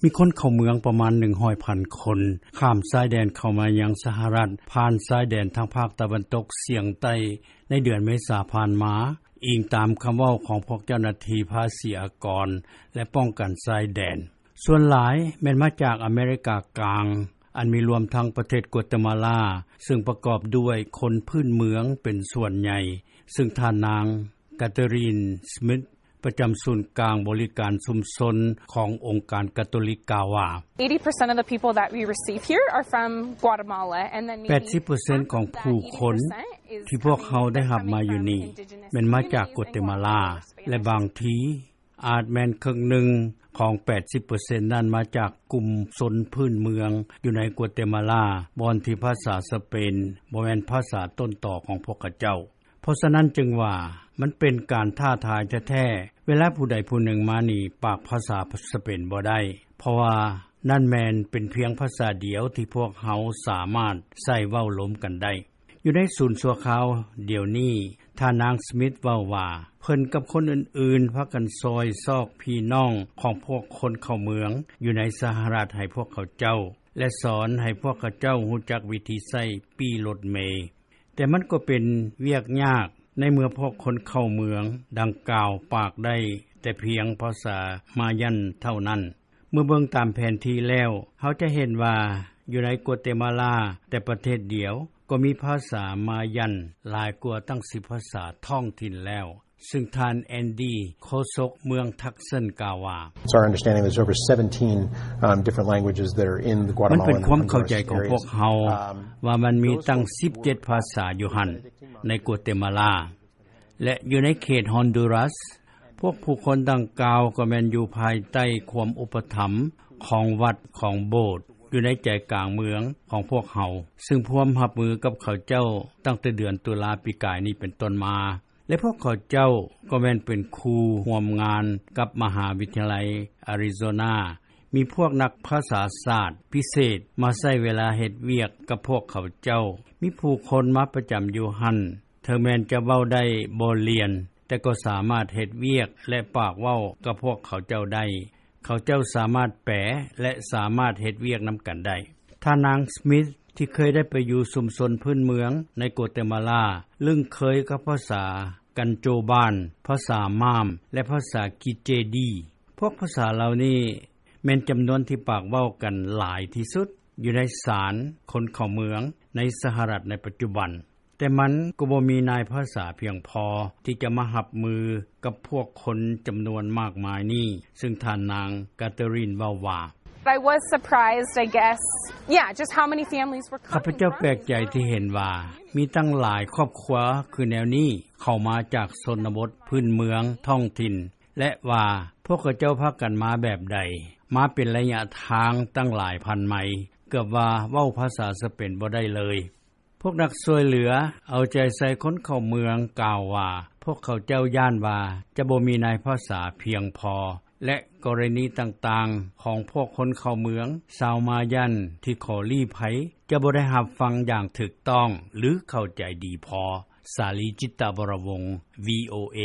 ມີຄົນເຂົ້າເມືອງປະມານ ໜຶ່ງຮ້ອຍພັນຄົນ ຂ້າມຊາຍແດນເຂົ້າມາຍັງສະຫະລັດ ຜ່ານຊາຍແດນທາງພາກຕາເວັນຕົກສຽງໃຕ້ ໃນເດືອນເມສາຜ່ານມາ, ອີງຕາມຄຳເວົ້າຂອງພວກເຈົ້າໜ້າທີ່ພາສີອາກອນ ແລະ ປ້ອງກັນຊາຍແດນ. ສ່ວນຫຼາຍແມ່ນມາຈາກອາເມລິກາກາງ, ອັນມີລວມທັງປະເທດກົວເຕມາລາ ຊຶ່ງປະກອບດ້ວຍຄົນພື້ນເມືອງເປັນສ່ວນໃຫຍ່, ຊຶ່ງທ່ານນາງ ກາເທີຣີນ ສມິດ ປະຈຳສູນກາງບໍລິການຊຸມຊົນຂອງອົງການກາໂຕລິກກ່າວວ່າ eighty percent of the people that we receive here are from Guatemala, and then ແປດສິບເປີເຊັນຂອງຜູ້ຄົນທີ່ພວກເຮົາໄດ້ຮັບມາຢູ່ນີ້ ແມ່ນມາຈາກກົວເຕມາລາ ແລະ ບາງທີອາດແມ່ນເຄິ່ງໜຶ່ງຂອງແປດສິບເປີເຊັນນັ້ນມາຈາກກຸ່ມຊົນພື້ນເມືອງຢູ່ໃນກົວເຕມາລາ ບ່ອນທີ່ພາສາສະເປນບໍ່ແມ່ນພາສາຕົ້ນຕໍຂອງພວກເຂົາເຈົ້າ. ເພາະສະນັ້ນຈຶ່ງວ່າ ມັນເປັນການທ້າທາຍແທ້ໆ ເວລາຜູ້ໃດຜູ້ໜຶ່ງມານີ້ປາກພາສາສະເປນບໍ່ໄດ້ ເພາະວ່ານັ້ນແມ່ນເປັນພຽງພາສາດຽວທີ່ພວກເຮົາສາມາດໃຊ້ເວົ້າລົມກັນໄດ້. ຢູ່ໃນສູນຊົ່ວຄາວດຽວນີ້, ທ່ານນາງສມິດເວົ້າວ່າ ເພິ່ນກັບຄົນອື່ນໆພາກັນຊ່ອຍຊອກພີ່ນ້ອງຂອງພວກຄົນເຂົ້າເມືອງຢູ່ໃນສະຫະລັດໃຫ້ພວກເຂົາເຈົ້າ ແລະ ສອນໃຫ້ພວກເຂົາເຈົ້າຮູ້ຈັກວິທີໃຊ້ປີ້ລົດເມ. ແຕ່ມັນກໍເປັນວຽກຍາກໃນເມື່ອພວກຄົນເຂົ້າເມືອງດັ່ງກ່າວປາກໄດ້ແຕ່ພຽງພາສາມາຍັນເທົ່ານັ້ນ. ເມື່ອເບິ່ງຕາມແຜນທີ່ແລ້ວ, ເຮົາຈະເຫັນວ່າຢູ່ໃນກົວເຕມາລາແຕ່ປະເທດດຽວກໍມີພາສາມາຍັນຫຼາຍກວ່າຕັ້ງສິບພາສາທ້ອງຖິ່ນແລ້ວ, ຊຶ່ງທ່ານ ແອນດີ ໂຄສົກເມືອງທັກເຊິນກ່າວວ່າ It's our understanding there's over seventeen, um, different languages that are in the Guatemalan and Honduras areas. ມັນເປັນຄວາມເຂົ້າໃຈຂອງພວກເຮົາວ່າມັນມີຕັ້ງສິບເຈັດພາສາຢູ່ຫັ້ນໃນກົວເຕມາລາ ແລະ ຢູ່ໃນເຂດຮອນດູຣັສ. ພວກຜູ້ຄົນດັ່ງກ່າວກໍແມ່ນຢູ່ພາຍໃຕ້ຄວາມອຸປະຖຳຂອງວັດຂອງໂບດຢູ່ໃນໃຈກາງເມືອງຂອງພວກເຮົາ, ຊຶ່ງພວມຮັບມືກັບເຂົາເຈົ້າຕັ້ງແຕ່ເດືອນຕຸລາປີກາຍນີ້ເປັນຕົ້ນມາ. ແລະ ພວກເຂົາເຈົ້າກໍແມ່ນເປັນຄູ່ຮ່ວມງານກັບມະຫາວິທະຍາໄລອາຣິໂຊນາ. ມີພວກນັກພາສາສາດພິເສດມາໃຊ້ເວລາເຮັດວຽກກັບພວກເຂົາເຈົ້າ. ມີຜູ້ຄົນມາປະຈຳຢູ່ຫັ້ນ. ເຖິງແມ່ນຈະເວົ້າໄດ້ບໍ່ລຽນ, ແຕ່ກໍສາມາດເຮັດວຽກ ແລະ ປາກເວົ້າກັບພວກເຂົາເຈົ້າໄດ້. ເຂົາເຈົ້າສາມາດແປ ແລະ ສາມາດເຮັດວຽກນຳກັນໄດ້. ທ່ານນາງສມິດ ທີ່ເຄີຍໄດ້ໄປຢູ່ຊຸມຊົນພື້ນເມືອງໃນໂກເຕມາລາ ລຶ້ງເຄີຍກັບພາສາກັນໂຈບານ, ພາສາມາມ ແລະ ພາສາກິເຈດີ. ພວກພາສາເຫຼົ່ານີ້ແມ່ນຈຳນວນທີ່ປາກເວົ້າກັນຫຼາຍທີ່ສຸດຢູ່ໃນສານຄົນເຂົ້າເມືອງໃນສະຫະລັດໃນປັດຈຸບັນ. ແຕ່ມັນກໍບໍ່ມີນາຍພາສາພຽງພໍທີ່ຈະມາຮັບມືກັບພວກຄົນຈຳນວນມາກມາຍນີ້, ຊຶ່ງທ່ານນາງກາເທີຣີນເວົ້າວ່າ I was surprised, I guess. Yeah, just how many families were coming from. ຂ້າພະເຈົ້າແປກໃຈທີ່ເຫັນວ່າມີຕັ້ງຫຼາຍຄອບຄົວຄືແນວນີ້ເຂົ້າມາຈາກຊົນນະບົດພື້ນເມືອງທ້ອງຖິ່ນ ແລະ ວ່າພວກເຂົາເຈົ້າພາກັນມາແບບໃດ, ມາເປັນໄລຍະທາງຕັ້ງຫຼາຍພັນໄມ, ເກືອບວ່າເວົ້າພາສາສະເປນບໍ່ໄດ້ເລີຍ. ພວກນັກຊ່ວຍເຫຼືອເອົາໃຈໃສ່ຄົນເຂົ້າເມືອງກ່າວວ່າ ພວກເຂົາເຈົ້າຢ້ານວ່າຈະບໍ່ມີນາຍພາສາພຽງພໍ ແລະ ກໍລະນີຕ່າງໆຂອງພວກຄົນເຂົ້າເມືອງຊາວມາຍັນທີ່ຂໍລີ້ໄພ ຈະບໍ່ໄດ້ຮັບຟັງຢ່າງຖືກຕ້ອງ ຫຼື ເຂົ້າໃຈດີພໍ. ສາລີ ຈິດຕະວໍລະວົງ ວີໂອເອ.